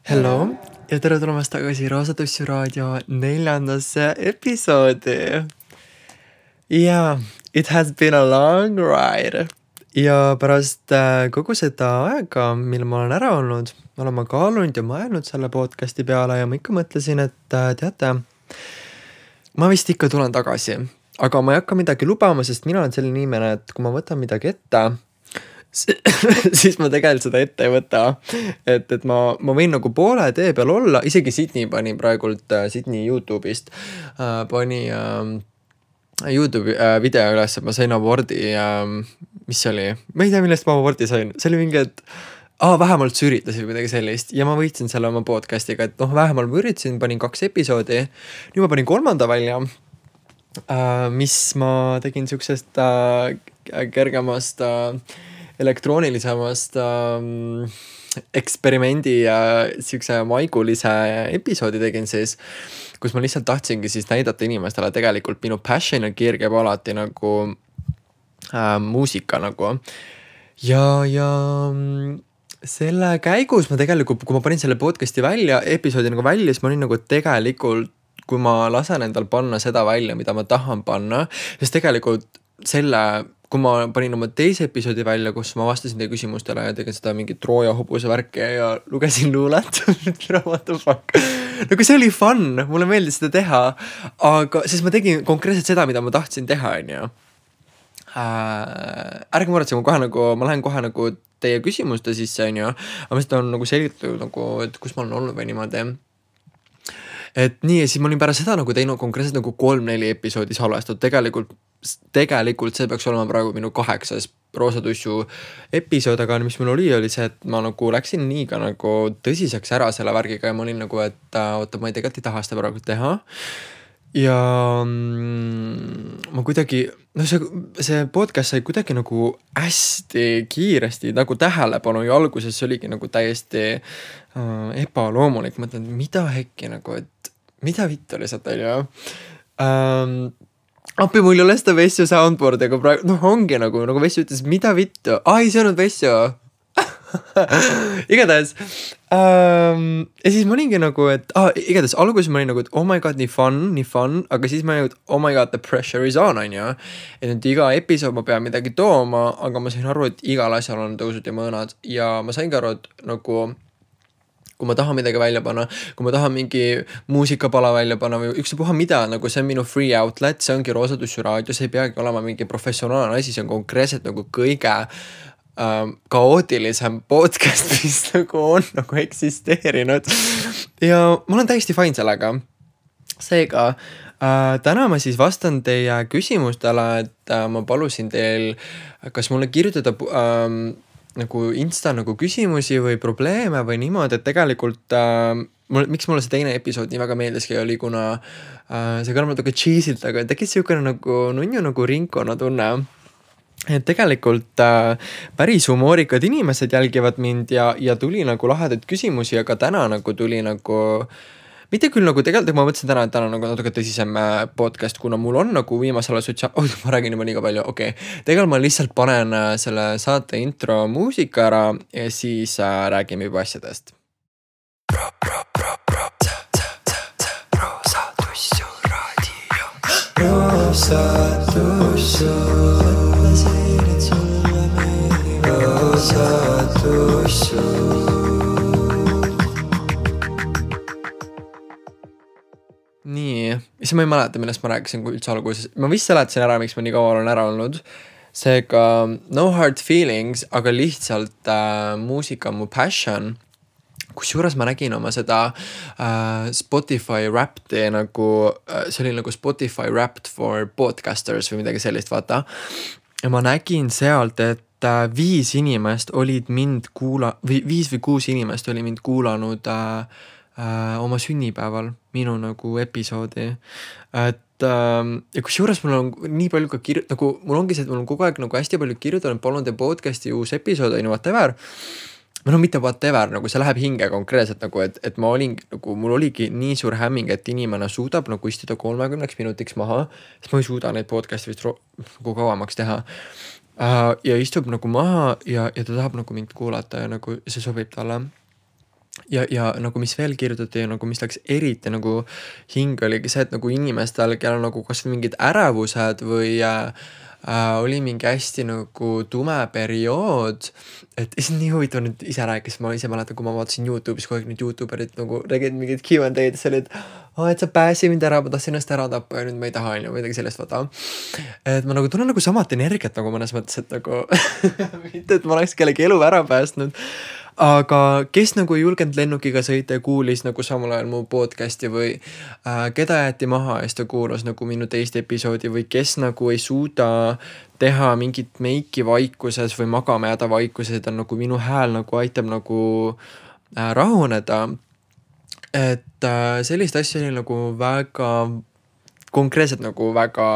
Hello ja tere tulemast tagasi Roosatussi raadio 4. episoodi. Yeah, it has been a long ride. Ja pärast kogu seda aega, mil ma olen ära olnud, olen ma kaalunud ja mõelnud selle podcasti peale ja ma ikka mõtlesin, et teate, ma vist ikka tulen tagasi. Aga ma ei hakka midagi lubama, sest mina olen selline inimene, et kui ma võtan midagi ette, siis ma tegelikult seda ette ei võta. Et ma võin nagu poole tee peal olla, isegi Sydney pani praegult Sydney YouTube'ist pani YouTube video üles, et ma sain abordi, mis see oli? Ma ei tea, millest ma abordi sain. See oli mingi, et vähemalt sa üritasid või midagi sellist ja ma võitsin selle oma podcastiga, et vähemalt ma üritasin, panin 2 episoodi. Nüüd ma panin 3. välja, mis ma tegin siuksest kergemast elektroonilisemast eksperimendi ja siukse maigulise episoodi tegin siis, kus ma lihtsalt tahtsingi siis näidata inimestele tegelikult minu passion ja kiir käib alati nagu muusika nagu. Ja selle käigus ma tegelikult, kui ma panin selle podcasti välja, episoodi nagu välja, siis ma olin nagu tegelikult, kui ma lasen endal panna seda välja, mida ma tahan panna, siis tegelikult kui ma panin oma teise episoodi välja, kus ma vastasin teie küsimustele ja tegin seda mingit Trooja hobuse värki ja lugesin luulet, what the fuck. Nagu see oli fun, mulle meeldis seda teha, aga siis ma tegin konkreetselt seda, mida ma tahtsin teha, onju. Ärge muretse, ma lähen kohe nagu teie küsimuste sisse, onju, aga ma seda on nagu selgitatud nagu, et kus ma olen olnud või niimoodi. Et nii, ja siis ma olin pärast seda nagu teinud konkreetselt nagu 3-4 episoodi salvestatud. Tegelikult see peaks olema praegu minu 8. Roosatussu episood, aga mis mul oli see, et ma nagu läksin nii ka nagu tõsiseks ära selle värgiga ja ma olin nagu, et oota, ma tegelikult ei taha seda praegu teha. Ja ma kuidagi, see podcast sai kuidagi nagu hästi kiiresti nagu tähelepanu ja alguses see oligi nagu täiesti ebaloomulik. Mõtlen, mida hekki nagu, et mida vittu lihtsalt oli. Appi, mul ei ole seda Vessju soundboardi, aga praegu, ongi nagu Vessju ütles, mida vittu? Ei, see on Vessju. Igatahes. Ja siis ma olingi nagu, et igatahes alguses ma olin nagu, et oh my god, nii fun, aga siis ma olin, et oh my god, the pressure is on, ja. Et nüüd iga episood ma pean midagi tooma, aga ma sain aru, et igal asjal on tõusud ja mõõnad ja ma saingi aru, et nagu kui ma tahan midagi välja panna, kui ma tahan mingi muusikapala välja panna või ükspuha mida, nagu see on minu free outlet, see ongi Roosatussi raadio, see ei peagi olema mingi professionaalne asi, see on konkreetselt nagu kõige kaootilisem podcast, mis nagu on nagu eksisteerinud. Ja ma olen täiesti fine sellega. Seega, täna ma siis vastan teie küsimustele, et ma palusin teil, kas mulle kirjutada nagu Insta nagu küsimusi või probleeme või niimoodi, et tegelikult miks mulle see teine episood nii väga meeldiski oli, kuna see kõlab natuke cheesilt, aga tekkis siukene nagu nunju nagu ringkonna tunne. Et tegelikult päris humoorikad inimesed jälgivad mind ja tuli nagu lahedaid küsimusi, aga täna nagu tuli nagu mitte küll nagu tegelikult ma mõtlesin täna, et täna nagu natuke tõsisem podcast, kuna mul on nagu viimasel ma räägin juba liiga palju, okei. Tegelikult ma lihtsalt panen selle saate intro muusika ära ja siis räägime juba asjadest. Roosatussu raadio. Roosatussu. Mõtlesin, et sulle meeldib Roosatussu. Nii, siis ma ei mäleta, millest ma rääkisin, kui üldse alguses. Ma vist seletasin ära, miks ma nii kaua olen ära olnud. Seega no hard feelings, aga lihtsalt muusika on mu passion. Kusjuures ma nägin oma seda Spotify Wrapped nagu, see oli nagu Spotify Wrapped for podcasters või midagi sellist, vaata. Ja ma nägin sealt, et 5 inimest olid mind 5 või 6 inimest oli mind kuulanud oma sünnipäeval minu nagu episoodi. Et ja kusjuures mul on nii palju ka nagu mul ongi see, et mul on kogu aeg nagu hästi palju kirjutanud, palun te podcasti uus episood, whatever. Mitte whatever, nagu see läheb hinge konkreetselt nagu, et ma olin nagu, mul oligi nii suur hämming, et inimene suudab nagu istuda 30 minutiks maha, sest ma ei suuda neid podcasti vist nagu kauemaks teha. Ja istub nagu maha ja ta tahab nagu mind kuulata ja nagu see sobib talle. ja nagu mis veel kirjutati ja nagu mis läks eriti nagu hinge, oligi see, et nagu inimestel, kellel nagu kas või mingid ärevused või oli mingi hästi nagu tume periood, et see on nii huvitav nüüd ise rääkis, ma ise mäletan, kui ma vaatasin Youtube'is kogu aeg need youtuberid nagu tegid mingid Q&A-d, see oli, et et sa pääsi mind ära, ma tahtsin ennast ära tappa ja nüüd ma ei taha, on ju, midagi sellest vaata. Et ma nagu tunnen nagu samat energiat nagu mõnes mõttes, et nagu mitte, et ma oleks kellegi elu ära päästnud, aga kes nagu ei julgenud lennukiga sõita ja kuulis nagu samal ajal mu podcast'i või keda jäeti maha ja siis ta kuulas nagu minu teist episoodi või kes nagu ei suuda teha mingit meiki vaikuses või magama jääda vaikuses, et on nagu minu hääl nagu aitab nagu rahuneda. Et sellist asja oli nagu väga konkreetselt nagu väga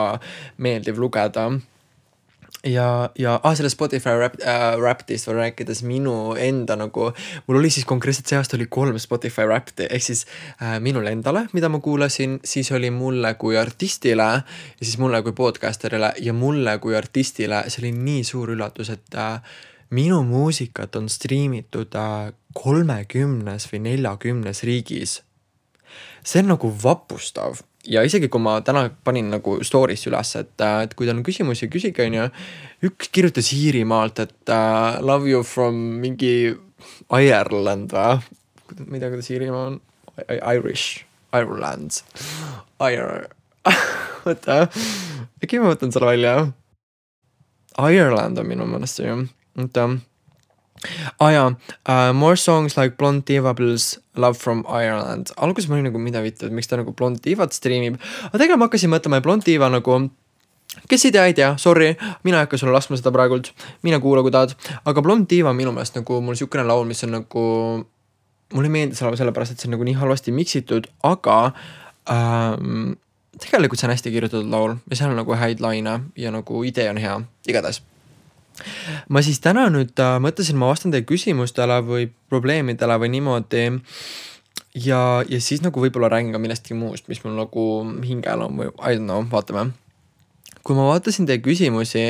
meeldiv lugeda. Ja selle Spotify Wrapped'ist veel rääkides minu enda nagu, mul oli siis konkreetselt see aasta oli 3 Spotify Wrapped'i, ehk siis minule endale, mida ma kuulasin, siis oli mulle kui artistile ja siis mulle kui podcasterile ja mulle kui artistile, see oli nii suur üllatus, et minu muusikat on streamitud 30 või 40 riigis. See on nagu vapustav. Ja isegi kui ma täna panin nagu story'sse üles, et kui teil on küsimusi, küsige, on ju. Üks kirjutas Iirimaalt, et love you from mingi Ireland või? Ma ei tea, kuidas Iirimaa on. Irish. Ireland. Võta. Äkki ma võtan selle välja. Ireland on minu mõnest see ju. Võta. More songs like Blonde Diva plus Love from Ireland. Alguses ma olin nagu mida vittu, et miks ta nagu Blonde Divat streamib. Aga tegelikult ma hakkasin mõtlema, et Blonde Diva nagu, kes ei tea, sorry, mina ei hakka sulle laskma seda praegult, mine kuula, kui tahad. Aga Blonde Diva minu meelest nagu mul siukene laul, mis on nagu, mulle ei meeldi selle pärast, et see on nagu nii halvasti miksitud, aga tegelikult see on hästi kirjutatud laul ja seal on nagu häid laine ja nagu idee on hea, igatahes. Ma siis täna nüüd mõtlesin, ma vastan teie küsimustele või probleemidele või niimoodi ja siis nagu võib-olla räägin ka millestki muust, mis mul nagu hingel on või I don't know, vaatame. Kui ma vaatasin teie küsimusi,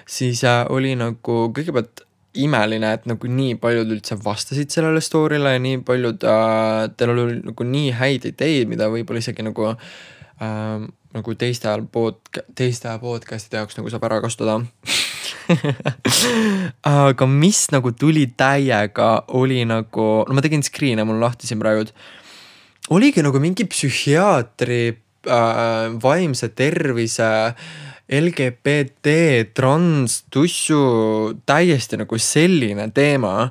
siis oli nagu kõigepealt imeline, et nagu nii paljud üldse vastasid sellele story'le ja nii paljud teil oli nagu nii häid ideid, mida võib-olla isegi nagu teiste podcast'ide jaoks nagu saab ära kasutada. Aga mis nagu tuli täiega oli nagu, no ma tegin screen'e, mul lahti siin praegu, oligi nagu mingi psühhiaatri, vaimse tervise, LGBT, trans, tussu, täiesti nagu selline teema.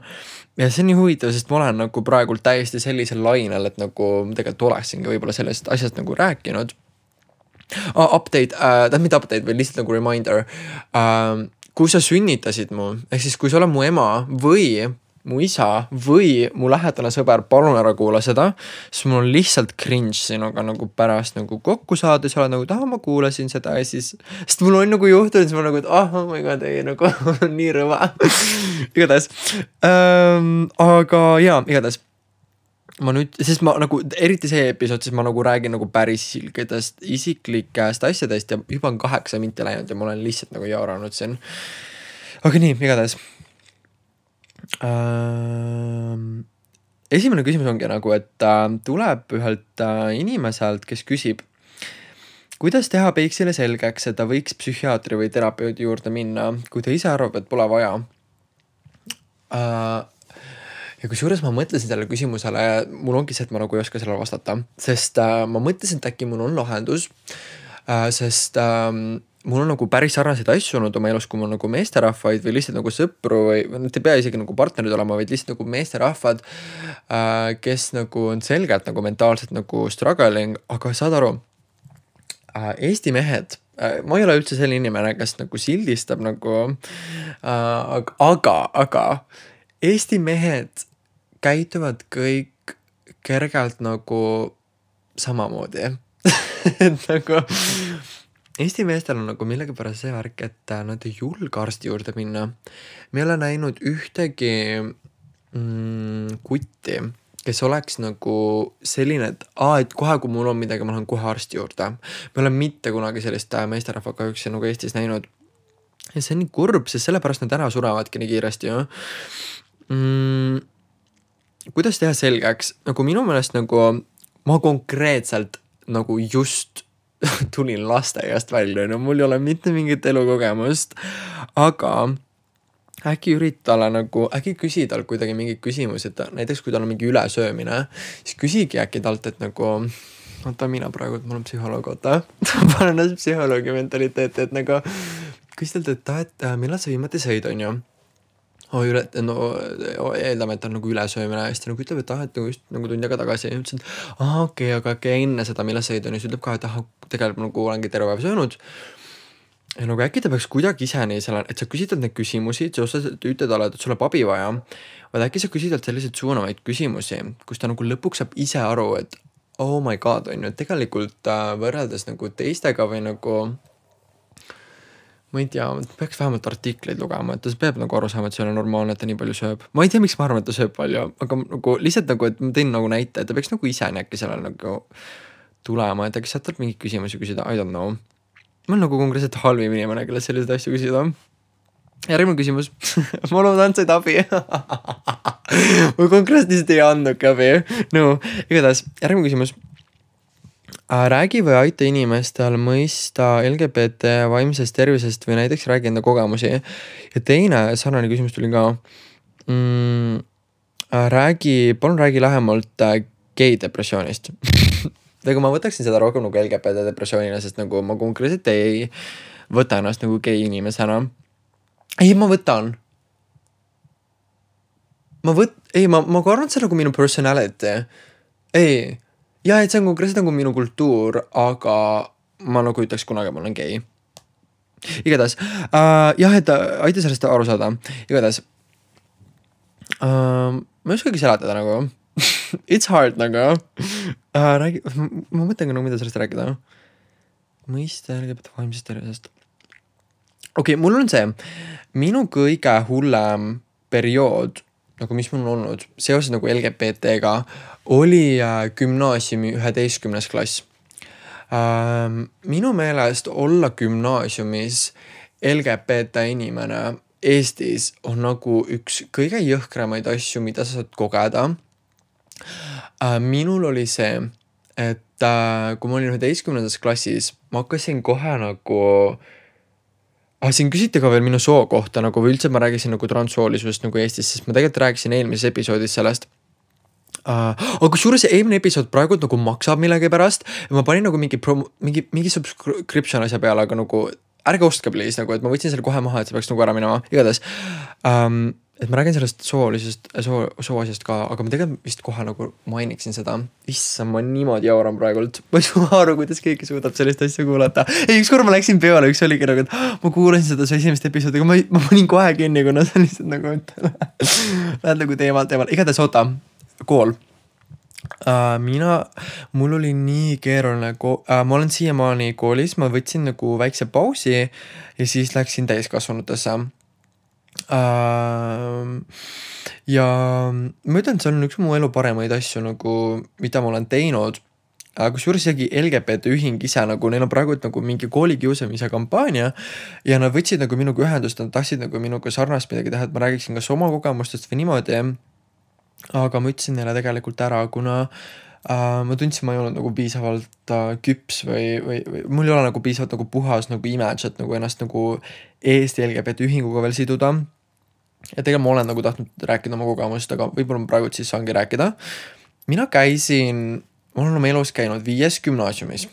Ja see on nii huvitav, sest ma olen nagu praegult täiesti sellisel lainel, et nagu tegelikult oleksingi võib-olla sellest asjast nagu rääkinud. Update, mitte update, või lihtsalt nagu reminder. Kui sa sünnitasid mu, ehk siis kui sa oled mu ema või mu isa või mu lähedane sõber, palun ära kuula seda, siis mul on lihtsalt cringe sinuga nagu pärast nagu kokku saada, sa oled nagu, ma kuulasin seda ja siis, sest mul on nagu juhtunud, siis ma nagu, et oh my god, ei nagu nii rõva. Igatahes. Aga jaa, igatahes. Ma nüüd, sest ma nagu, eriti see episood, siis ma nagu räägin nagu päris isiklikest asjadest ja juba on 8 minti läinud ja ma olen lihtsalt nagu jauranud siin. Aga nii, igatahes. Esimene küsimus ongi nagu, et tuleb ühelt inimeselt, kes küsib, kuidas teha Peiksile selgeks, et ta võiks psühhiaatri või terapeudi juurde minna, kui ta ise arvab, et pole vaja. Ja kusjuures ma mõtlesin sellele küsimusele, mul ongi see, et ma nagu ei oska sellele vastata, sest ma mõtlesin, et äkki mul on lahendus, sest mul on nagu päris sarnaseid asju olnud oma elus, kui mul nagu meesterahvaid või lihtsalt nagu sõpru või te pea isegi nagu partnerid olema, vaid lihtsalt nagu meesterahvad, kes nagu on selgelt nagu mentaalselt nagu struggling, aga saad aru, Eesti mehed, ma ei ole üldse selline inimene, kes nagu sildistab nagu, aga Eesti mehed käituvad kõik kergelt nagu samamoodi. Et nagu Eesti meestel on nagu millegipärast see värk, et nad ei julge arsti juurde minna. Me ei ole näinud ühtegi kutti, kes oleks nagu selline, et kohe kui mul on midagi, ma lähen kohe arsti juurde. Me olen mitte kunagi sellist meesterahva kahjuks nagu Eestis näinud. Ja see on nii kurb, sest sellepärast nad ära surevadki nii kiiresti ju. kuidas teha selgeks, nagu minu meelest nagu ma konkreetselt nagu just tulin lasteaiast välja, no mul ei ole mitte mingit elukogemust, aga äkki üritale nagu, äkki küsi tal kuidagi mingeid küsimusi, et näiteks kui tal on mingi ülesöömine, siis küsigi äkki talt, et nagu oota, mina praegu, mul on psühholoog, oota panen ennast psühholoogi mentaliteeti, et nagu küsi talt, et millal sa viimati sõid, on ju? Eeldame, et on nagu ülesöömine hästi nagu ütleb, et et nagu just nagu tund aega tagasi ja ütlesin, et okei, aga enne seda, millal sõid on, siis ütleb ka, et tegelikult nagu olengi terve päev söönud. Ja nagu äkki ta peaks kuidagi ise nii selle, et sa küsitad neid küsimusi, sa ütled talle, et sul on abi vaja, vaid äkki sa küsitad selliseid suunavaid küsimusi, kus ta nagu lõpuks saab ise aru, et oh my god, on ju, tegelikult võrreldes nagu teistega või nagu ma ei tea, peaks vähemalt artikleid lugema, et ta peab nagu aru saama, et see on normaalne, et ta nii palju sööb. Ma ei tea, miks ma arvan, et ta sööb palju, aga nagu lihtsalt nagu, et ma tõin nagu näite, et ta peaks nagu ise äkki sellele nagu tulema, et äkki saad mingeid küsimusi küsida, I don't know. Ma olen nagu konkreetselt halvim inimene, kelle selliseid asju küsida. Järgmine küsimus. Ma loodan, said abi. Ma konkreetselt ei andnudki abi. No, igatahes, järgmine küsimus. Räägi või aita inimestel mõista LGBT vaimsest tervisest või näiteks räägi enda kogemusi. Ja teine sarnane küsimus tuli ka. Palun räägi lähemalt gei depressioonist. Aga ma võtaksin seda rohkem nagu LGBT depressioonina, sest nagu ma konkreetselt ei võta ennast nagu gei inimesena. Ei, ma võtan. Ma arvan, et see on nagu minu personality. Ei. Ja, et see on konkreetselt nagu minu kultuur, aga ma nagu ütleks kunagi, ma olen gei. Igatahes, jah, et aita sellest aru saada. Igatahes, ma ei oskagi seletada nagu. It's hard nagu. Ma mõtlen ka nagu, mida sellest rääkida. Mõista LGBT vaimsest tervisest. Okei, mul on see, minu kõige hullem periood, nagu mis mul on olnud, seoses nagu LGBT-ga, oli gümnaasiumi 11. klass. Minu meelest olla gümnaasiumis LGBT inimene Eestis on nagu üks kõige jõhkramaid asju, mida sa saad kogeda. Minul oli see, et kui ma olin 11. klassis, ma hakkasin kohe nagu siin küsiti ka veel minu soo kohta, nagu või üldse ma räägisin nagu transsoolisusest nagu Eestis, sest ma tegelikult rääkisin eelmises episoodis sellest. Aga kusjuures eelmine episood praegu nagu maksab millegi pärast ja ma panin nagu mingi subscription asja peale, aga nagu ärge ostke please, nagu, et ma võtsin selle kohe maha, et see peaks nagu ära minema. Igatahes, et ma räägin sellest sooasjast ka, aga ma tegelikult vist kohe nagu mainiksin seda. Issa, ma niimoodi jauran praegult. Ma ei saa aru, kuidas keegi suudab sellist asja kuulata. Ei, ükskord ma läksin peale, üks oligi nagu, et ma kuulasin seda su esimest episoodi, aga ma panin kohe kinni, kuna see on lihtsalt nagu, et lähed nagu teemal. Igatahes oota, kool. Mul oli nii keeruline, ma olen siiamaani koolis, ma võtsin nagu väikse pausi ja siis läksin täiskasvanutesse. Ja ma ütlen, et see on üks mu elu paremaid asju nagu, mida ma olen teinud. Kusjuures isegi LGBT ühing ise nagu, neil on praegu nagu mingi koolikiusamise kampaania ja nad võtsid nagu minuga ühendust, nad tahtsid nagu minuga sarnast midagi teha, et ma räägiksin kas oma kogemustest või niimoodi. Aga ma ütlesin neile tegelikult ära, kuna ma tundsin, ma ei olnud nagu piisavalt küps või mul ei ole nagu piisavalt nagu puhas nagu image, et nagu ennast nagu Eesti LGBT ühinguga veel siduda. Ja tegelikult ma olen nagu tahtnud rääkida oma kogemust, aga võib-olla ma praegu siis saangi rääkida. Ma olen oma elus käinud 5 gümnaasiumis.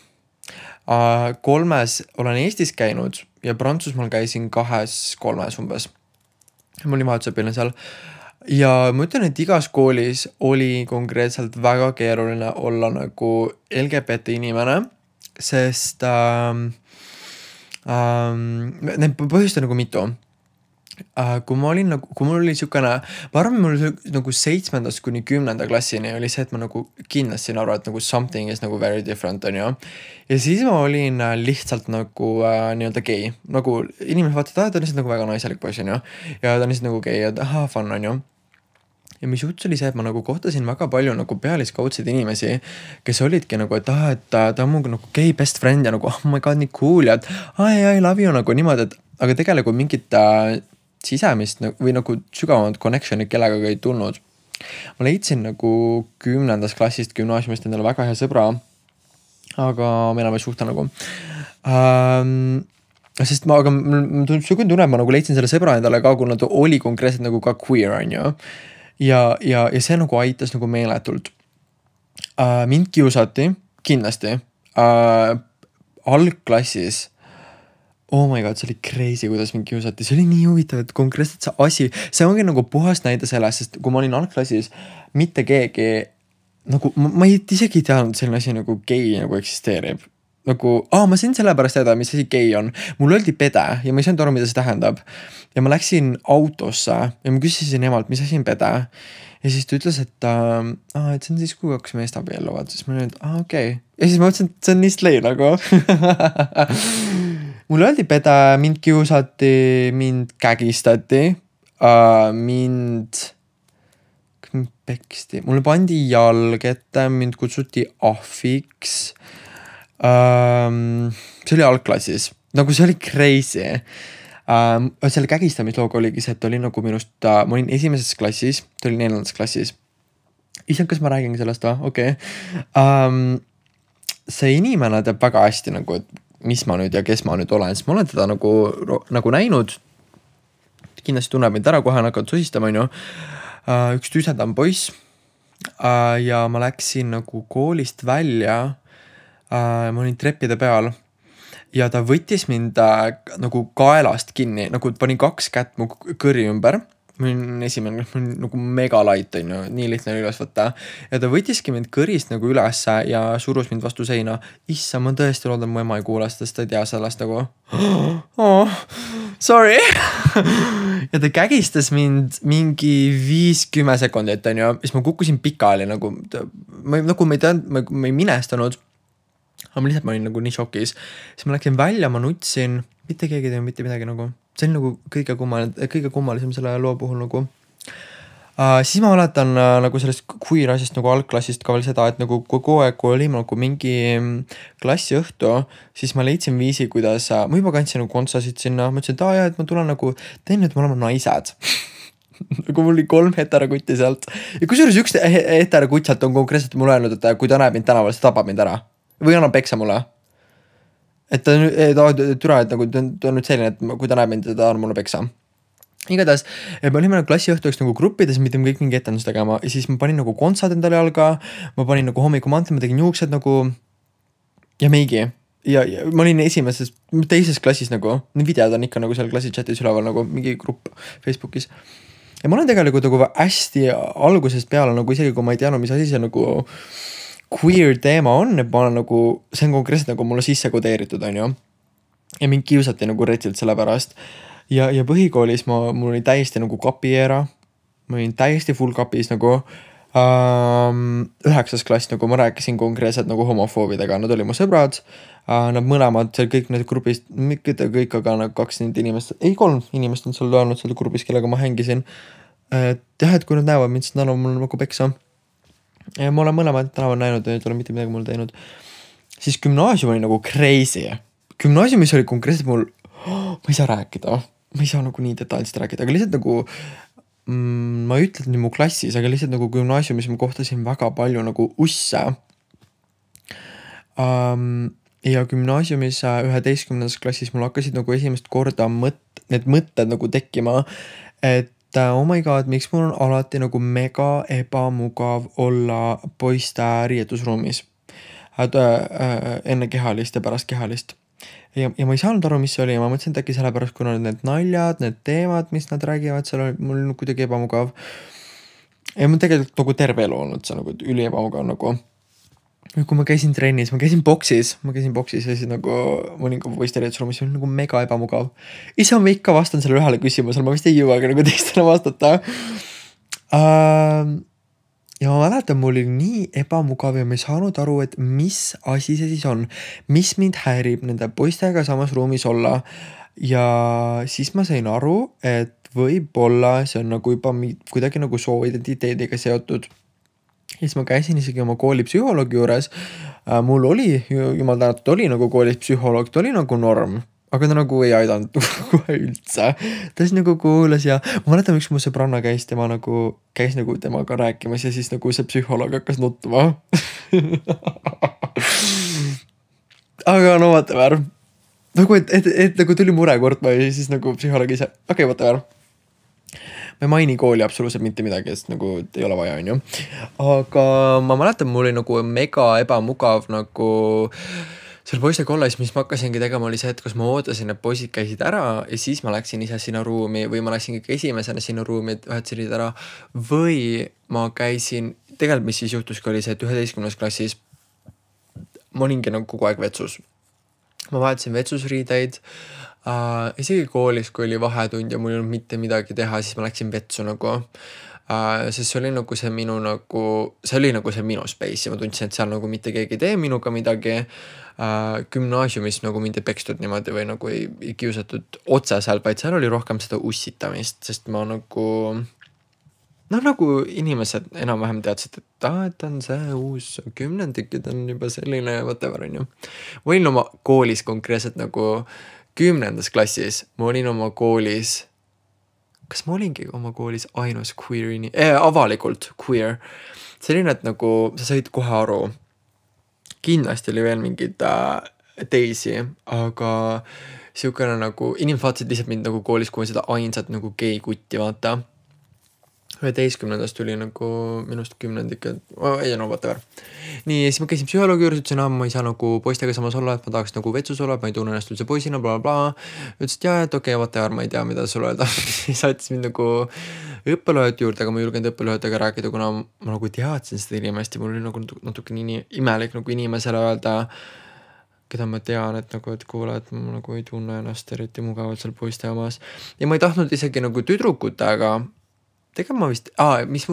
3 olen Eestis käinud ja Prantsusmaal käisin 2-3 umbes. Ma olin vahetusõpilane seal. Ja ma ütlen, et igas koolis oli konkreetselt väga keeruline olla nagu LGBT inimene, sest need põhjust on nagu mitu. Kui mul oli siukene, ma arvan, mul oli nagu 7. kuni 10. klassini oli see, et ma nagu kindlasti aru, et nagu something is nagu very different, on ju. Ja siis ma olin lihtsalt nagu nii-öelda gei. Nagu inimesed vaatavad, ta on lihtsalt nagu väga naiselik poiss, on ju. Ja ta on lihtsalt nagu gei ja fun, on ju. Ja mis juts oli see, et ma nagu kohtasin väga palju nagu pealiskaudseid inimesi, kes olidki nagu, et ta on mu nagu gei best friend ja nagu, oh my god, nii cool ja et I love you nagu niimoodi, et aga tegelikult mingit sisemist või nagu sügavamad connectionid kellega ei tulnud. ma leidsin nagu 10. klassist gümnaasiumist endale väga hea sõbra, aga me enam ei suhtle nagu. Sest ma tunne, ma nagu leidsin selle sõbra endale ka, kuna ta oli konkreetselt nagu ka queer, on ju. Ja see nagu aitas nagu meeletult. Mind kiusati, kindlasti. Algklassis. Oh my god, see oli crazy, kuidas mind kiusati. See oli nii huvitav, et konkreetselt see asi, see ongi nagu puhas näide sellest, sest kui ma olin algklassis, mitte keegi, nagu ma isegi ei teadnud selline asi nagu gei nagu eksisteerib. Nagu, ma sain sellepärast teada, mis asi gei on. Mul öeldi pede ja ma ei saanud aru, mida see tähendab. Ja ma läksin autosse ja ma küsisin emalt, mis asi on pede. Ja siis ta ütles, et see on siis, kui kaks meest abielluvad. Siis ma olin, et okei. Ja siis ma mõtlesin, et see on nii slay nagu. Mul öeldi pede, mind kiusati, mind kägistati, mind peksti. Mulle pandi jalg ette, mind kutsuti ahviks. See oli algklassis, nagu see oli crazy. Selle kägistamislooga oligi see, et oli nagu minust, ma olin esimeses klassis, ta oli 4. klassis. Issand, kas ma räägin sellest või? Okei. See inimene teab väga hästi nagu, et mis ma nüüd ja kes ma nüüd olen, sest ma olen teda nagu näinud. Kindlasti tunneb mind ära, kohe hakkad susistama, on ju. Üks tüsedam poiss. Ja ma läksin nagu koolist välja. Ma olin treppide peal ja ta võttis mind nagu kaelast kinni, nagu pani 2 kätt mu kõri ümber. Ma olin esimene, ma olin nagu mega light, on ju, nii lihtne üles võtta. Ja ta võttiski mind kõrist nagu üles ja surus mind vastu seina. Issa, ma tõesti loodan, mu ema ei kuule, sest ta ei tea sellest nagu. Sorry. Ja ta kägistas mind mingi 5-10 sekundit, on ju. Siis ma kukkusin pikali nagu ma ei minestanud. Aga ma lihtsalt olin nagu nii šokis. Siis ma läksin välja, ma nutsin. Mitte keegi teeb mitte midagi nagu. See on nagu kõige kummalisem selle loo puhul nagu. Siis ma mäletan nagu sellest queer asjast nagu algklassist ka veel seda, et nagu kogu aeg, kui oli nagu mingi klassiõhtu, siis ma leidsin viisi, kuidas ma juba kandsin nagu kontsasid sinna. Ma ütlesin, et et ma tulen nagu, teen nüüd, me oleme naised. Nagu mul oli 3 heterakutti sealt. Ja kusjuures üks heterakutt sealt on konkreetselt mulle öelnud, et kui ta näeb mind tänaval, siis tapab mind ära. Või annab peksa mulle. Et ta türa, et nagu ta on nüüd selline, et kui ta näeb mind, ta on mulle peksa. Igatahes, me olime klassiõhtuks nagu gruppides, mitte kõik mingi etendus tegema. Ja siis ma panin nagu kontsad endale jalga, ma panin nagu hommikumantel, ma tegin juuksed nagu ja meigi. Ja ma olin teises klassis nagu, need videod on ikka nagu seal klassi chatis üleval nagu mingi grupp Facebookis. Ja ma olen tegelikult nagu hästi algusest peale nagu isegi, kui ma ei teadnud, mis asi see nagu queer teema on, et ma olen nagu, see on konkreetselt nagu mulle sisse kodeeritud, on ju. Ja mind kiusati nagu retilt selle pärast. Ja põhikoolis mul oli täiesti nagu kapieera. Ma olin täiesti full kapis nagu 9. klass, nagu ma rääkisin konkreetselt nagu homofoobidega. Nad oli mu sõbrad. Nad mõlemad, seal kõik need grupist, mitte kõik, aga nagu 2 inimest, 3 inimest on seal olnud seal grupis, kellega ma hängisin. Et kui nad näevad mind, siis nad on mul nagu peksa. Ja ma olen mõlemad tänaval näinud, et ei ole mitte midagi mul teinud. Siis gümnaasium oli nagu crazy. Gümnaasiumis oli konkreetselt mul, ma ei saa rääkida. Ma ei saa nagu nii detailselt rääkida, aga lihtsalt nagu ma ei ütle, et mu klassis, aga lihtsalt nagu gümnaasiumis ma kohtasin väga palju nagu usse. Ja gümnaasiumis 11. klassis mul hakkasid nagu esimest korda need mõtted nagu tekkima, et oh my god, miks mul on alati nagu mega ebamugav olla poiste riietusruumis enne kehalist ja pärast kehalist. Ja ma ei saanud aru, mis see oli ja ma mõtlesin, et äkki sellepärast, kuna need naljad, need teemad, mis nad räägivad, seal oli mul kuidagi ebamugav. Ja mul tegelikult nagu terve elu olnud see nagu üli ebamugav nagu. Kui ma käisin trennis, ma käisin boksis ja siis nagu ma olin ka poiste riietusruumis, see oli nagu mega ebamugav. Ise ma ikka vastan selle ühele küsimusele, ma vist ei jõuagi nagu teistele vastata. Ja ma mäletan, mul oli nii ebamugav ja ma ei saanud aru, et mis asi see siis on, mis mind häirib nende poistega samas ruumis olla. Ja siis ma sain aru, et võib-olla see on nagu juba kuidagi nagu sooidentiteediga seotud. Ja siis ma käisin isegi oma kooli psühholoogi juures. Mul oli, jumal tänatud, oli nagu koolis psühholoog, ta oli nagu norm. aga ta nagu ei aidanud kohe üldse. Ta siis nagu kuulas ja ma mäletan, üks mu sõbranna käis nagu temaga rääkimas ja siis nagu see psühholoog hakkas nutma. aga no whatever. Nagu, et nagu tuli mure kurtma ja siis nagu psühholoog ise, okei, whatever. Ma ei maini kooli absoluutselt mitte midagi, sest nagu ei ole vaja, on ju. Aga ma mäletan, mul oli nagu mega ebamugav nagu seal poiste kolles, mis ma hakkasingi tegema, oli see, et kus ma ootasin, et poisid käisid ära ja siis ma läksin ise sinna ruumi või ma läksin kõik esimesena sinna ruumi, et ühed sõid ära. Või ma käisin, tegelikult mis siis juhtuski oli see, et 11. klassis ma olingi nagu kogu aeg vetsus. Ma vahetasin vetsusriideid. Isegi koolis, kui oli vahetund ja mul ei olnud mitte midagi teha, siis ma läksin vetsu nagu. Sest see oli nagu see minu nagu, see oli nagu see minu space ja ma tundsin, et seal nagu mitte keegi ei tee minuga midagi. Gümnaasiumis nagu mind ei pekstud niimoodi või nagu ei kiusatud otseselt, vaid seal oli rohkem seda ussitamist, sest ma nagu nagu inimesed enam-vähem teadsid, et on see uus kümnendik ja ta on juba selline whatever, on ju. Ma olin oma koolis konkreetselt nagu 10. klassis, ma olin oma koolis, kas ma olingi oma koolis ainus queer avalikult queer. Selline, et nagu sa said kohe aru. Kindlasti oli veel mingid teisi, aga siukene nagu, inimesed vaatasid lihtsalt mind nagu koolis, kui ma seda ainsat nagu gei kutti vaata. 11. tuli nagu minust 10. ei no whatever. Nii, siis ma käisin psühholoogi juures, ütlesin, ma ei saa nagu poistega samas olla, et ma tahaks nagu vetsus olla, ma ei tunne ennast üldse poisina, blablabla. Ütlesid, et okei, whatever, ma ei tea, mida sulle öelda. Saatis mind nagu õppelööd juurde, aga ma julgenud õppelöödega rääkida, kuna ma nagu teadsin seda inimest ja mul oli nagu natuke nii imelik nagu inimesele öelda, keda ma tean, et nagu, et kuule, et ma nagu ei tunne ennast eriti mugavalt seal poiste omas. Ja ma ei tahtnud isegi nagu tüdrukutega, tegelikult ma vist, mis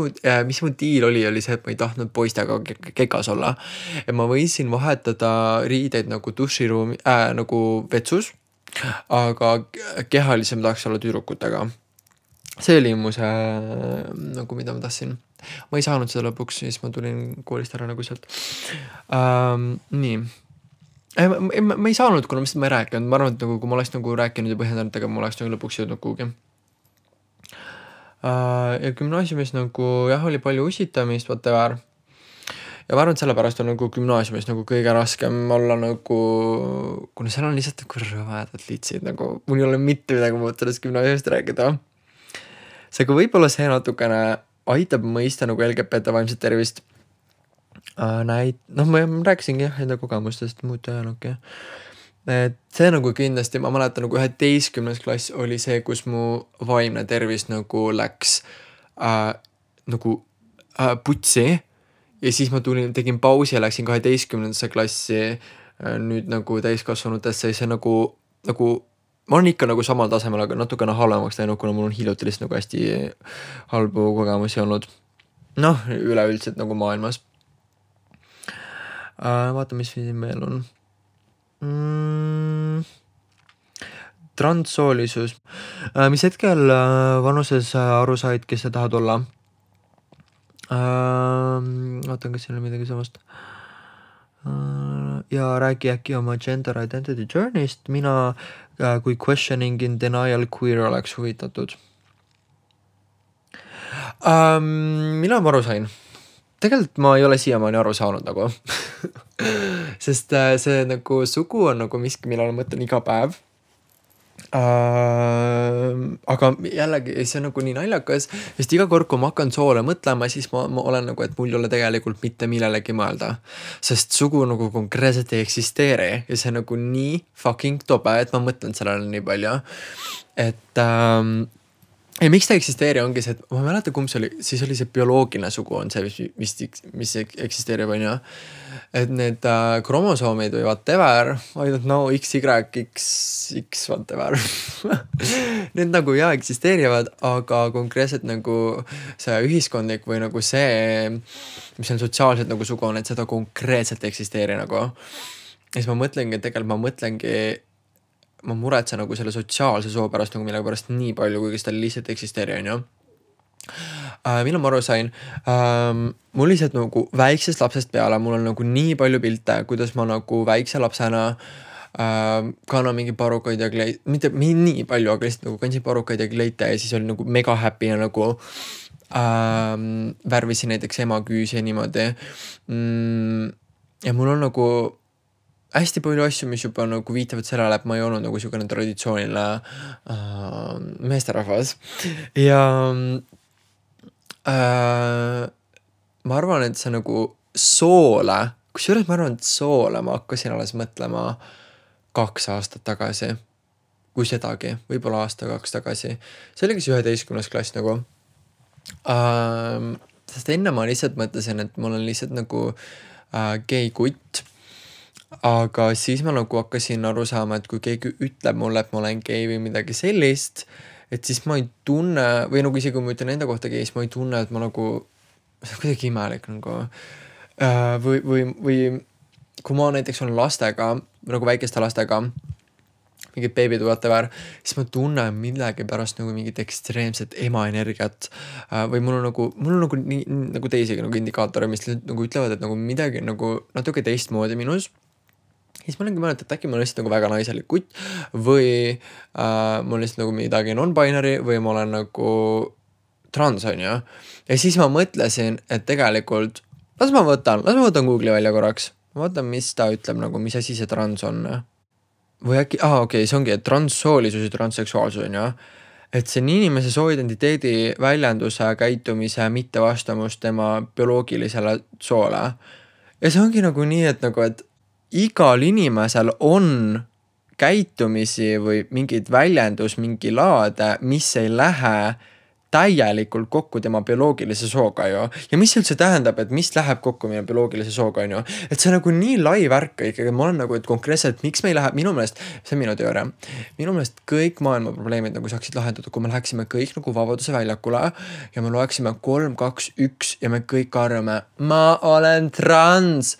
mu diil oli see, et ma ei tahtnud poistega kekas olla. Ja ma võisin vahetada riideid nagu duširuumi, nagu vetsus, aga kehalisem tahaks olla tüdrukutega. See oli mu see, nagu mida ma tahtsin. Ma ei saanud seda lõpuks, siis ma tulin koolist ära nagu sealt. Nii. Ma ei saanud, kuna ma ei rääkinud. Ma arvan, et nagu, kui ma oleks nagu rääkinud ja põhjendanud, aga ma oleks nagu lõpuks jõudnud kuhugi. Ja gümnaasiumis nagu jah, oli palju ussitamist, whatever. Ja ma arvan, et sellepärast on nagu gümnaasiumis nagu kõige raskem olla nagu, kuna seal on lihtsalt nagu rõvedad litsid, nagu mul ei ole mitte midagi muud sellest gümnaasiumist rääkida. Seega võib-olla see natukene aitab mõista nagu LGBT vaimset tervist. Ma rääkisingi jah enda kogemustest muud ajaloogi. Et see nagu kindlasti, ma mäletan nagu 11. klass oli see, kus mu vaimne tervis nagu läks nagu putsi ja siis ma tegin pausi ja läksin 12. klassi nüüd nagu täiskasvanutesse ja see nagu ma olen ikka nagu samal tasemel, aga natukene halvemaks läinud, kuna mul on hiljuti lihtsalt nagu hästi halbu kogemusi olnud. Üleüldiselt nagu maailmas. Vaata, mis siin veel on. Transsoolisus. Mis hetkel vanuses aru said, kes sa tahad olla? Vaatan, kas siin on midagi samast. Ja räägi äkki oma gender identity journey'st. Mina kui questioning in denial queer oleks huvitatud. Mina ma aru sain? Tegelikult ma ei ole siiamaani aru saanud nagu. Sest see nagu sugu on nagu miski, millele mõtlen iga päev. Aga jällegi see on nagu nii naljakas, sest iga kord, kui ma hakkan soole mõtlema, siis ma olen nagu, et mul ei ole tegelikult mitte millelegi mõelda. Sest sugu nagu konkreetselt ei eksisteeri ja see on nagu nii fucking tobe, et ma mõtlen sellele nii palju. Et ja miks ta eksisteeri ongi see, et ma mäleta, kumb see oli, siis oli see bioloogiline sugu on see, mis eksisteerib, on ju. Et need kromosoomid või whatever, I don't know, X, whatever. Need nagu eksisteerivad, aga konkreetselt nagu see ühiskondlik või nagu see, mis on sotsiaalselt nagu sugu on, et seda konkreetselt eksisteeri nagu. Ja siis ma mõtlengi, ma muretsen nagu selle sotsiaalse soo pärast nagu millega pärast nii palju, kuigi seda lihtsalt eksisteeri, on ju. Millal ma aru sain? Mul lihtsalt nagu väiksest lapsest peale, mul on nagu nii palju pilte, kuidas ma nagu väikse lapsena kannan mingi parukaid ja kleit, mitte nii palju, aga lihtsalt nagu kandsin parukaid ja kleite ja siis oli nagu mega happy ja nagu värvisin näiteks ema küüsi ja niimoodi. Ja mul on nagu hästi palju asju, mis juba nagu viitavad sellele, et ma ei olnud nagu niisugune traditsiooniline meesterahvas. Ja ma arvan, et see nagu soole, kusjuures ma arvan, et soole ma hakkasin alles mõtlema 2 aastat tagasi, kui sedagi, võib-olla aasta 2 tagasi. See oli kas 11. klass nagu. Sest enne ma lihtsalt mõtlesin, et mul on lihtsalt nagu gei kutt. Aga siis ma nagu hakkasin aru saama, et kui keegi ütleb mulle, et ma olen gei või midagi sellist, et siis ma ei tunne, või nagu isegi kui ma ütlen enda kohta gei, siis ma ei tunne, et ma nagu, see on kuidagi imelik nagu. Või kui ma näiteks olen lastega, nagu väikeste lastega, mingid beebid whatever, siis ma tunnen millegi pärast nagu mingit ekstreemset emaenergiat. Või mul on nagu nii, nagu teisigi nagu indikaatorid, mis nagu ütlevad, et nagu midagi nagu natuke teistmoodi minus. Siis ma olengi mõelnud, et äkki ma olen lihtsalt nagu väga naiselik kutt või mul lihtsalt nagu midagi non-binary või ma olen nagu trans, on ju. Ja siis ma mõtlesin, et tegelikult las ma võtan Google'i välja korraks. Ma vaatan, mis ta ütleb nagu, mis asi see trans on. Või äkki, okei, see ongi, et transsoolisus ja transseksuaalsus on ju. Et see on inimese sooidentiteedi väljenduse, käitumise, mittevastamus tema bioloogilisele soole. Ja see ongi nagu nii, et igal inimesel on käitumisi või mingid väljendus, mingi laade, mis ei lähe täielikult kokku tema bioloogilise sooga ju. Ja mis üldse tähendab, et mis läheb kokku meie bioloogilise sooga on ju. Et see on nagu nii lai värk ikkagi, ma olen nagu, et konkreetselt, miks me ei lähe, minu meelest, see on minu teooria, minu meelest kõik maailma probleemid nagu saaksid lahendatud, kui me läheksime kõik nagu Vabaduse väljakule ja me loeksime 3, 2, 1 ja me kõik arvame, ma olen trans.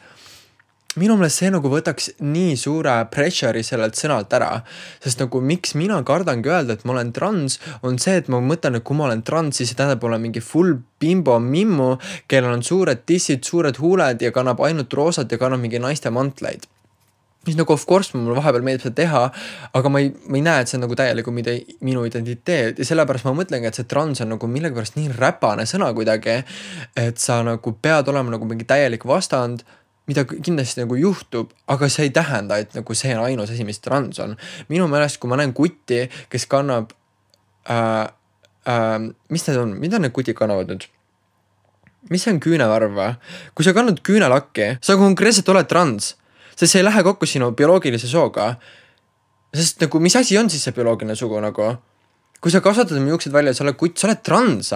Minu meelest see nagu võtaks nii suure pressure'i sellelt sõnalt ära, sest nagu miks mina kardangi öelda, et ma olen trans, on see, et ma mõtlen, et kui ma olen trans, siis see tähendab olla mingi full bimbo mimmu, kellel on suured tissid, suured huuled ja kannab ainult roosat ja kannab mingi naiste mantleid. Mis nagu of course mul vahepeal meeldib seda teha, aga ma ei näe, et see on nagu täielikult minu identiteet ja sellepärast ma mõtlengi, et see trans on nagu millegipärast nii räpane sõna kuidagi, et sa nagu pead olema nagu mingi täielik vastand, mida kindlasti nagu juhtub, aga see ei tähenda, et nagu see on ainus asi, mis trans on. Minu meelest, kui ma näen kutti, kes kannab, mis need on, mida need kutid kannavad nüüd? Mis see on küünevarv või? Kui sa kannad küünelakki, sa konkreetselt oled trans, sest see ei lähe kokku sinu bioloogilise sooga. Sest nagu, mis asi on siis see bioloogiline sugu nagu? Kui sa kasvatad oma juuksed välja, sa oled kutt, sa oled trans.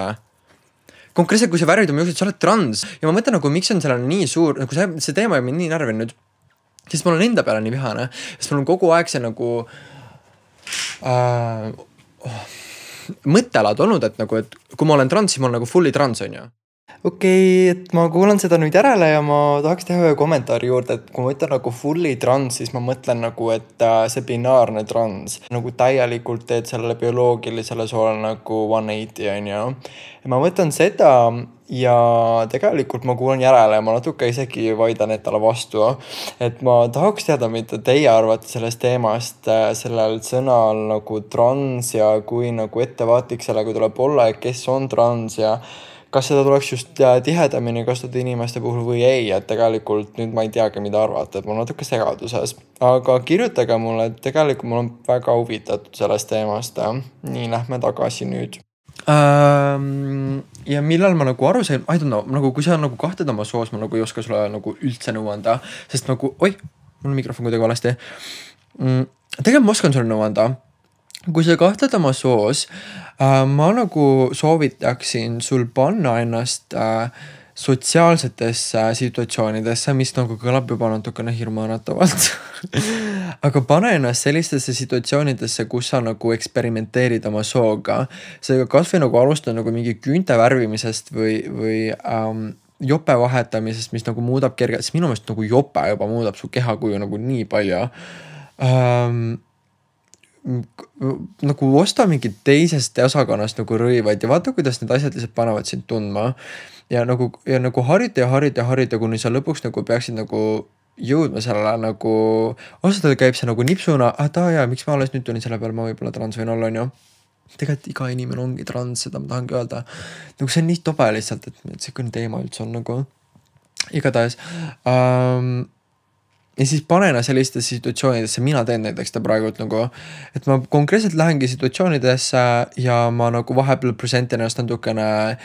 Konkreetselt, kui sa värvid oma juuksed, sa oled trans. Ja ma mõtlen nagu, miks on sellel nii suur, nagu see teema on mind nii närvinud, sest mul on enda peale nii vihane, sest mul on kogu aeg see nagu mõttelaad olnud, et nagu, et kui ma olen trans, siis ma olen nagu fully trans, on ju. Okei, et ma kuulan seda nüüd järele ja ma tahaks teha ühe kommentaari juurde, et kui ma ütlen nagu fully trans, siis ma mõtlen nagu, et see binaarne trans nagu täielikult teed sellele bioloogilisele soole nagu 180, on ju. Ja ma mõtlen seda ja tegelikult ma kuulan järele ja ma natuke isegi vaidan endale vastu, et ma tahaks teada, mida teie arvate sellest teemast, sellel sõnal nagu trans ja kui nagu ettevaatlik sellega tuleb olla, et kes on trans ja kas seda tuleks just tihedamini kasutada inimeste puhul või ei, et tegelikult nüüd ma ei teagi, mida arvata, et ma olen natuke segaduses. Aga kirjutage mulle, et tegelikult mul on väga huvitatud sellest teemast. Nii, lähme tagasi nüüd. Ja millal ma nagu aru sain, I don't know, nagu kui sa nagu kahtled oma soos, ma nagu ei oska sulle nagu üldse nõu anda, sest nagu, mul on mikrofon kuidagi valesti. Tegelikult ma oskan sulle nõu anda. Kui sa kahtled oma soos, ma nagu soovitaksin sul panna ennast sotsiaalsetesse situatsioonidesse, mis nagu kõlab juba natukene hirmuäratavalt. Aga pane ennast sellistesse situatsioonidesse, kus sa nagu eksperimenteerid oma sooga. Seega kas või nagu alustada nagu mingi küünte värvimisest või jope vahetamisest, mis nagu muudab kergelt, sest minu meelest nagu jope juba muudab su kehakuju nagu nii palju. Nagu osta mingid teisest osakonnast nagu rõivaid ja vaata, kuidas need asjad lihtsalt panevad sind tundma. Ja nagu harjuta, kuni sa lõpuks nagu peaksid nagu jõudma sellele nagu, ausalt öelda käib see nagu nipsuna, miks ma alles nüüd tulin selle peale, ma võib-olla trans võin olla, on ju. Tegelikult iga inimene ongi trans, seda ma tahangi öelda. Nagu see on nii tobe lihtsalt, et see küll teema üldse on nagu igatahes. Ja siis panena sellistesse situatsioonidesse, mina teen näiteks ta praegult nagu, et ma konkreetselt lähengi situatsioonidesse ja ma nagu vahepeal presentin ennast natukene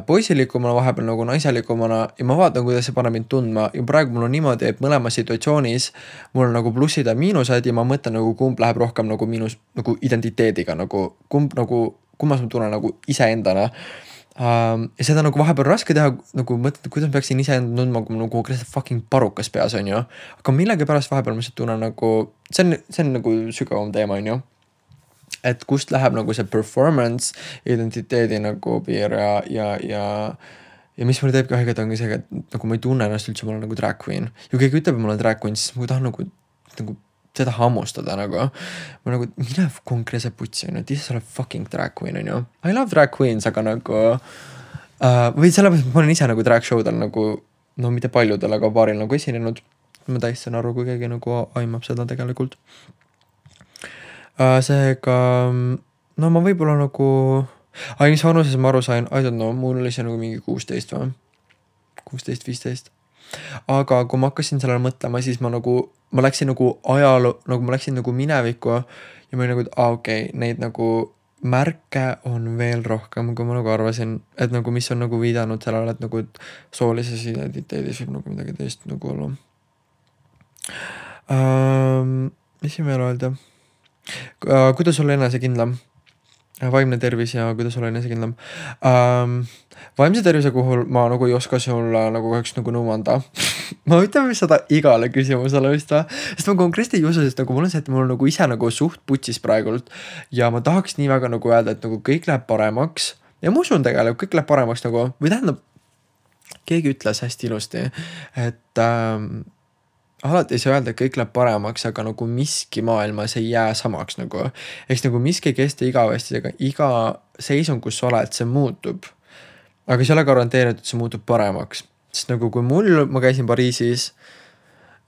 poisilikumana, vahepeal nagu naiselikumana ja ma vaatan, kuidas see paneb mind tundma ja praegu mul on niimoodi, et mõlema situatsioonis mul on nagu plussid ja miinused ja ma mõtlen nagu kumb läheb rohkem nagu miinus nagu identiteediga nagu kummas ma tunnen nagu iseendana. Ja seda nagu vahepeal raske teha, nagu mõtled, kuidas ma peaksin iseenda tundma, kui mul nagu konkreetselt fucking parukas peas on ju. Aga millegi pärast vahepeal ma lihtsalt tunnen nagu, see on nagu sügavam teema on ju. Et kust läheb nagu see performance, identiteedi nagu piir ja mis mulle teebki haiget ongi see, et nagu ma ei tunne ennast üldse, ma olen nagu drag queen. Ja keegi ütleb, et ma olen drag queen, siis ma tahan nagu seda hammustada nagu. Ma nagu, mine konkreetselt putsi on ju, et ise sa oled fucking drag queen on ju. I love drag queens, aga nagu või sellepärast, et ma olen ise nagu drag showdel nagu, no mitte paljudel, aga paaril nagu esinenud. Ma täiesti saan aru, kui keegi nagu aimab seda tegelikult. Seega, no ma võib-olla nagu, mis vanuses ma aru sain, I don't know, mul oli see nagu mingi 16 või? 16-15. Aga kui ma hakkasin sellele mõtlema, siis ma läksin nagu ajaloo, nagu ma läksin nagu minevikku ja ma olin nagu, et neid nagu märke on veel rohkem, kui ma nagu arvasin, et nagu mis on nagu viidanud sellele, et nagu soolises identiteedis võib nagu midagi teist nagu olla. Mis siin veel öelda? Kuidas olla enesekindlam? Vaimne tervis ja kuidas olla enesekindlam. Vaimse tervise puhul ma nagu ei oska sulle nagu kahjuks nagu nõu anda. Ma ütleme seda igale küsimusele vist või. Sest ma konkreetselt ei usu, sest nagu mul on see, et mul on nagu ise nagu suht putsis praegult. Ja ma tahaks nii väga nagu öelda, et nagu kõik läheb paremaks. Ja ma usun tegelikult, kõik läheb paremaks nagu, või tähendab, keegi ütles hästi ilusti, et alati ei saa öelda, et kõik läheb paremaks, aga nagu miski maailmas ei jää samaks nagu. Eks nagu miski ei kesta igavesti, aga iga seisund, kus sa oled, see muutub. Aga see ei ole garanteerinud, et see muutub paremaks. Sest nagu kui ma käisin Pariisis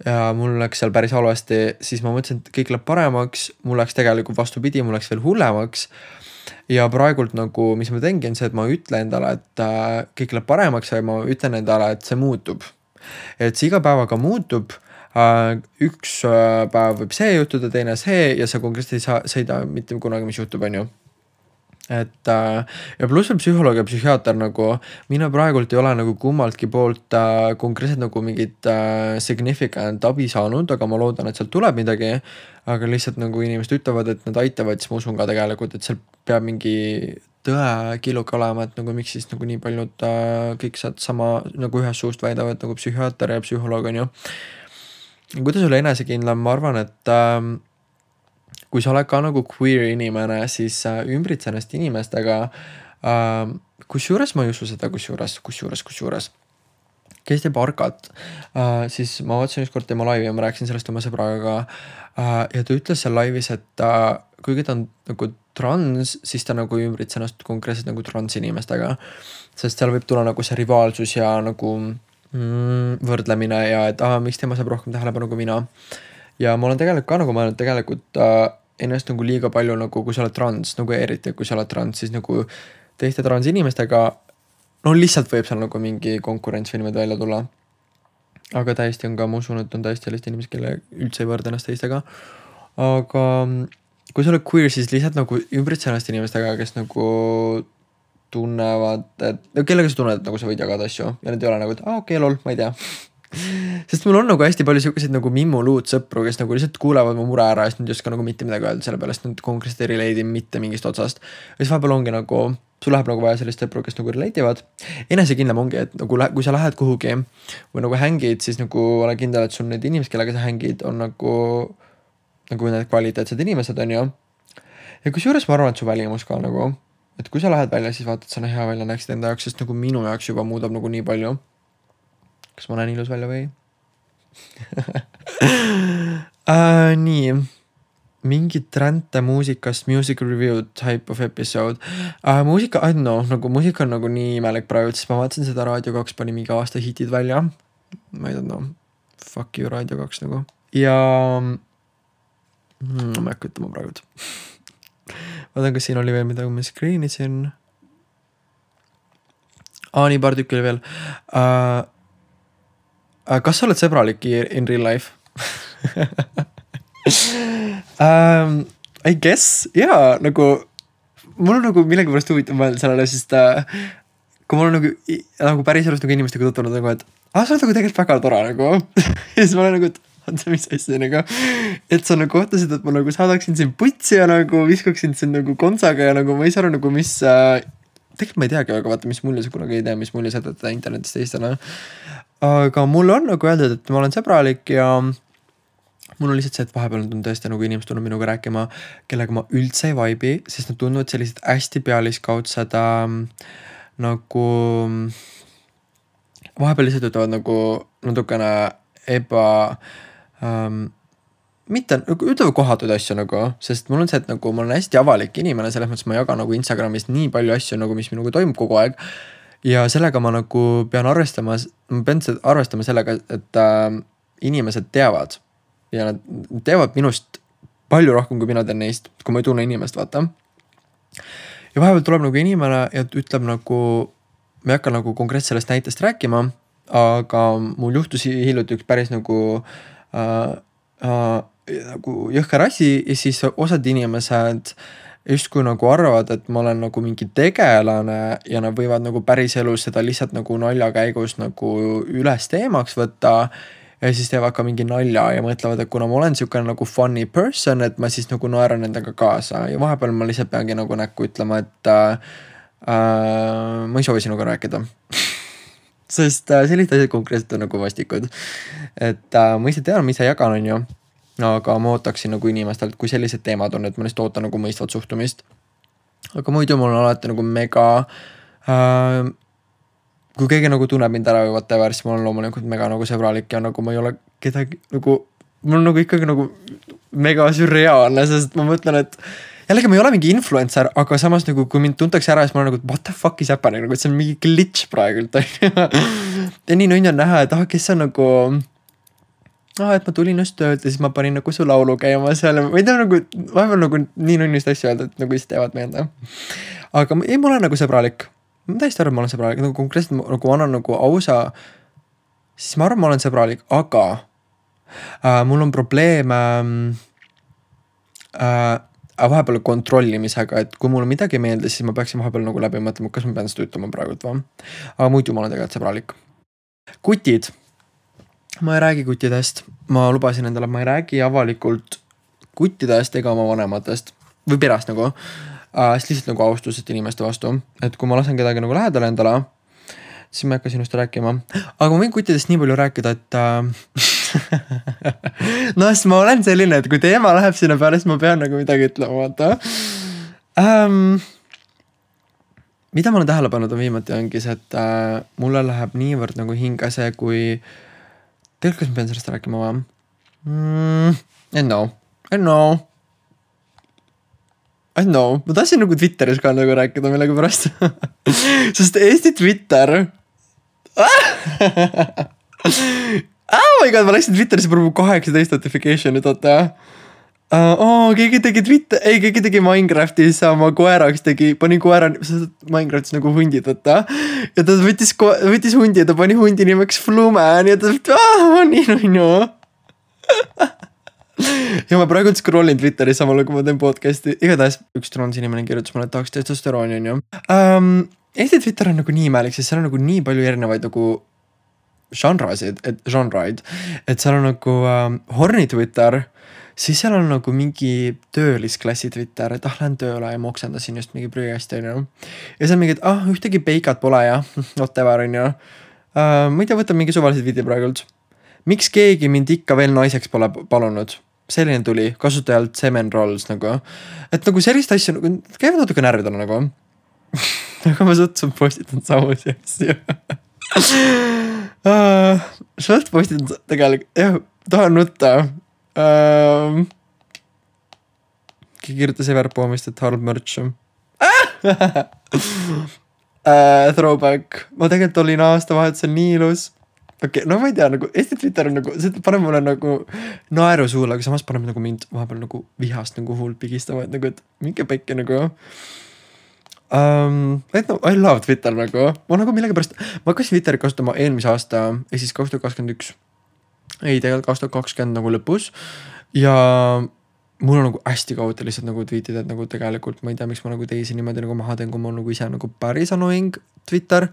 ja mul läks seal päris halvasti, siis ma mõtlesin, et kõik läheb paremaks, mul läks tegelikult vastupidi, mul läks veel hullemaks. Ja praegult nagu, mis ma teengi, on see, et ma ütlen endale, et kõik läheb paremaks ja ma ütlen endale, et see muutub. Et see iga päevaga muutub. Üks päev võib see juhtuda, teine see ja sa konkreetselt ei sõida mitte kunagi, mis juhtub, on ju. Et ja pluss veel psühholoog ja psühhiaater nagu, mina praegult ei ole nagu kummaltki poolt konkreetselt nagu mingit significant abi saanud, aga ma loodan, et sealt tuleb midagi, aga lihtsalt nagu inimesed ütlevad, et nad aitavad, siis ma usun ka tegelikult, et seal peab mingi tõekiluk olema, et nagu miks siis nagu nii paljud kõik saad sama nagu ühest suust väidavad nagu psühhiaater ja psühholoog on ju. Kuidas olla enesekindlam, ma arvan, et kui sa oled ka nagu queer inimene, siis ümbritse ennast inimestega, kusjuures ma ei usu seda, kusjuures. Kes teeb arkat, siis ma vaatasin üks kord tema laivi ja ma rääkisin sellest oma sõbraga ja ta ütles seal laivis, et kuigi ta on nagu trans, siis ta nagu ümbritse ennast konkreetselt nagu trans inimestega, sest seal võib tulla nagu see rivaalsus ja nagu võrdlemine ja et miks tema saab rohkem tähelepanu kui mina. Ja ma olen tegelikult ka nagu mõelnud tegelikult ennast nagu liiga palju nagu kui sa oled trans, nagu eriti kui sa oled trans, siis nagu teiste trans inimestega, no lihtsalt võib seal nagu mingi konkurents või niimoodi välja tulla. Aga täiesti on ka, ma usun, et on täiesti sellist inimesed, kelle üldse ei võrda ennast teistega. Aga kui sa oled queer, siis lihtsalt nagu ümbritse ennast inimestega, kes nagu tunnevad, et kellega sa tunned, et nagu sa võid jagada asju ja need ei ole nagu, et lol, ma ei tea. Sest mul on nagu hästi palju selliseid nagu mimmuluud sõpru, kes nagu lihtsalt kuulevad mu mure ära ja siis nad ei oska nagu mitte midagi öelda selle peale, sest nad konkreetselt ei relate mitte mingist otsast. Ja siis vahepeal ongi nagu, sul läheb nagu vaja sellist sõpru, kes nagu relate'ivad. Enesekindlam ongi, et nagu kui sa lähed kuhugi või nagu hängid, siis nagu ole kindel, et sul need inimesed, kellega sa hängid, on nagu need kvaliteetsed inimesed on ju. Ja kusjuures ma arvan, et su välimus ka nagu, et kui sa lähed välja, siis vaatad, sa hea välja näeksid enda jaoks, sest nagu minu jaoks juba muudab nagu nii palju. Kas ma näen ilus välja või? Nii. Mingid tränte muusikast, music review type of episode. Muusika, I don't know, nagu muusika on nagu nii imelik praegu, siis ma vaatasin seda Raadio 2 pani mingi aasta hitid välja. Ma ei don't know. fuck you Raadio 2 nagu. Ja ma ei hakka ütlema praegu. Vaatan, kas siin oli veel midagi, ma screen isin. Nii paar tükki oli veel. Kas sa oled sõbralik in real life? I guess, jaa, nagu mul on nagu millegi pärast huvitav mõelda sellele, sest kui mul on nagu päris elust nagu inimestega tutvunud nagu, et sa oled nagu tegelikult väga tore nagu. Ja siis ma olen nagu, et oota, mis asja nagu, et sa nagu kohtasid, et ma nagu saadaksin siin putsi ja nagu viskaksin siin nagu konsaga ja nagu ma ei saa aru nagu, mis tegelikult ma ei teagi, aga vaata, mis mulje sa kunagi ei tea, mis mulje sa teed internetist teistele. Aga mul on nagu öeldud, et ma olen sõbralik ja mul on lihtsalt see, et vahepeal on tõesti nagu inimesed tulnud minuga rääkima, kellega ma üldse ei vibe'i, sest nad tunduvad sellised hästi pealiskaudsed nagu vahepeal lihtsalt ütlevad nagu natukene mitte, nagu ütlevad kohatuid asju nagu, sest mul on see, et nagu ma olen hästi avalik inimene, selles mõttes ma jagan nagu Instagramis nii palju asju nagu, mis minuga toimub kogu aeg ja sellega ma nagu pean arvestama sellega, et inimesed teavad ja nad teevad minust palju rohkem, kui mina teen neist, kui ma ei tunne inimest, vaata. Ja vahepeal tuleb nagu inimene ja ütleb nagu, ma ei hakka nagu konkreetselt sellest näitest rääkima, aga mul juhtus hiljuti üks päris nagu jõhker asi ja siis osad inimesed justkui nagu arvavad, et ma olen nagu mingi tegelane ja nad võivad nagu päris elus seda lihtsalt nagu nalja käigus nagu üles teemaks võtta ja siis teevad ka mingi nalja ja mõtlevad, et kuna ma olen siukene nagu funny person, et ma siis nagu naeran nendega kaasa ja vahepeal ma lihtsalt peangi nagu näkku ütlema, et ma ei soovi sinuga rääkida. Sest sellised asjad konkreetselt on nagu vastikud. Et ma ise tean, ma ise jagan on ju, aga ma ootaksin nagu inimestelt, kui sellised teemad on, et ma lihtsalt ootan nagu mõistvat suhtumist. Aga muidu mul on alati nagu mega kui keegi nagu tunneb mind ära või whatever, siis ma olen loomulikult mega nagu sõbralik ja nagu ma ei ole kedagi nagu, mul on nagu ikkagi nagu mega sürreaalne, sest ma mõtlen, et jällegi ma ei ole mingi influencer, aga samas nagu kui mind tuntakse ära, siis ma olen nagu, what the fuck is happening, nagu et see on mingi glitch praegult. Ja nii on näha, et kes on nagu et ma tulin just töölt ja siis ma panin nagu su laulu käima seal, ma ei tea nagu, vahepeal nagu nii nunnist asju öelda, et nagu siis teevad meelde. Aga ei, ma olen nagu sõbralik. Ma täiesti arvan, ma olen sõbralik, nagu konkreetselt nagu annan nagu ausa, siis ma arvan, ma olen sõbralik, aga mul on probleem vahepeal kontrollimisega, et kui mul midagi ei meeldi, siis ma peaksin vahepeal nagu läbi mõtlema, kas ma pean seda ütlema praegult või. Aga muidu ma olen tegelikult sõbralik. Kutid. Ma ei räägi kuttidest. Ma lubasin endale, et ma ei räägi avalikult kuttidest ega oma vanematest või perast nagu. Siis lihtsalt nagu austusest inimeste vastu, et kui ma lasen kedagi nagu lähedale endale, siis ma ei hakka sinust rääkima, aga ma võin kuttidest nii palju rääkida, et no siis ma olen selline, et kui teema läheb sinna peale, siis ma pean nagu midagi ütlema, vaata. Mida ma olen tähele pannud on viimati ongi see, et mulle läheb niivõrd nagu hinge see, kui tegelikult kas ma pean sellest rääkima või? I know, ma tahtsin nagu Twitteris ka nagu rääkida millegi pärast. Sest Eesti Twitter. Oh my god, ma läksin Twitterisse praegu 18 notification'it, oota. Keegi tegi Minecraftis oma koeraks, pani koera, Minecraftis nagu hundid, oota. Ja ta võttis hundi ja ta pani hundi nimeks Fluman ja ta nii. Ja ma praegu scrollin Twitteris samal, kui ma teen podcasti. Igatahes üks transinimene kirjutas mulle, et tahaks testosterooni on ju. Eesti Twitter on nagu nii imelik, sest seal on nagu nii palju erinevaid nagu žanraid, et seal on nagu horny Twitter, siis seal on nagu mingi töölisklassi Twitter, et lähen tööle ja ma oksendasin just mingi prügasti on ju. Ja seal mingi, et ühtegi peikat pole ja whatever on ju. Ma ei tea, võtan mingi suvalised video praegult. Miks keegi mind ikka veel naiseks pole palunud? Selline tuli kasutajalt Semen Rolls nagu. Et nagu sellist asju nagu, käivad natuke närvidele nagu. Aga ma suhteliselt postitan samusi asju. Suht postitan tegelikult, jah, tahan nutta. Kirjutas Everpoomist, et halb mürts. Throwback. Ma tegelikult olin aastavahetusel nii ilus. okei, no ma ei tea, nagu Eesti Twitter on nagu, see paneb mulle nagu naeru suule, aga samas paneb nagu mind vahepeal nagu vihast nagu huult pigistama, et nagu, et minge pekki nagu. Et no, I love Twitter nagu, ma nagu millegipärast, ma hakkasin Twitterit kasutama eelmise aasta, siis 2021, ei tegelikult 2020 nagu lõpus ja mul on nagu hästi kaote lihtsalt nagu tweetida, et nagu tegelikult ma ei tea, miks ma nagu teisi niimoodi nagu maha teen, kui mul nagu ise nagu päris annoying Twitter,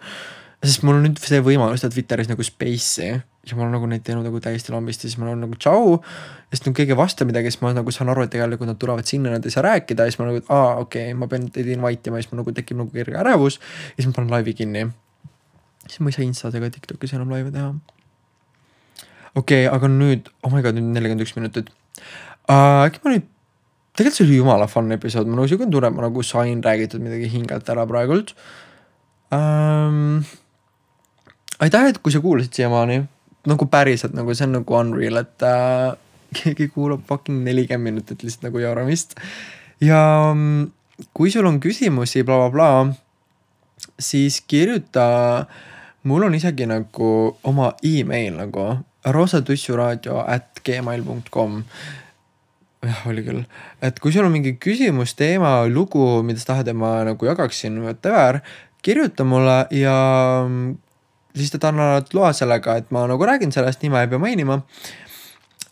sest mul on nüüd see võimalus teha Twitteris nagu space'i ja ma olen nagu neid teinud nagu täiesti lambist ja siis ma olen nagu tšau ja siis keegi vasta midagi, siis ma nagu saan aru, et tegelikult nad tulevad sinna, nad ei saa rääkida ja siis ma nagu, et okei, ma pean teid invite ima ja siis ma nagu tekib nagu kerge ärevus ja siis ma panen laivi kinni. Siis ma ei saa Instas ega TikTokis enam laive teha. Okei, aga nüüd, oh my god, nüüd 41 minutit. Äkki ma nüüd, tegelikult see oli jumala fun episood, ma nagu siuke tunne, ma nagu sain räägitud midagi hingelt ära praegult. Aitäh, et kui sa kuulasid siiamaani, nagu päriselt, nagu see on nagu unreal, et keegi kuulab fucking 40 minutit lihtsalt nagu jauramist. Ja kui sul on küsimusi, bla bla bla, siis kirjuta, mul on isegi nagu oma email nagu rosatussuradio@gmail.com. Jah, oli küll. Et kui sul on mingi küsimus, teema, lugu, mida sa tahad, et ma nagu jagaksin, whatever, kirjuta mulle ja siis ta annavad loa sellega, et ma nagu räägin sellest, nime ei pea mainima.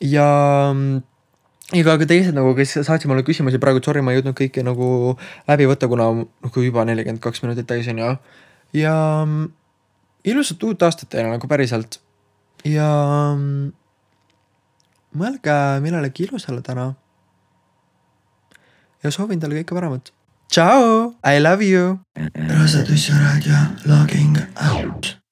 Ja ka teised nagu, kes saatsid mulle küsimusi praegu, sorry, ma ei jõudnud kõike nagu läbi võtta, kuna nagu juba 42 minutit täis on ja ilusat uut aastat teile nagu päriselt. Ja mõelge millelegi ilusale täna. Ja soovin teile kõike paremat. Ciao! I love you! Rosatussuradio logging out.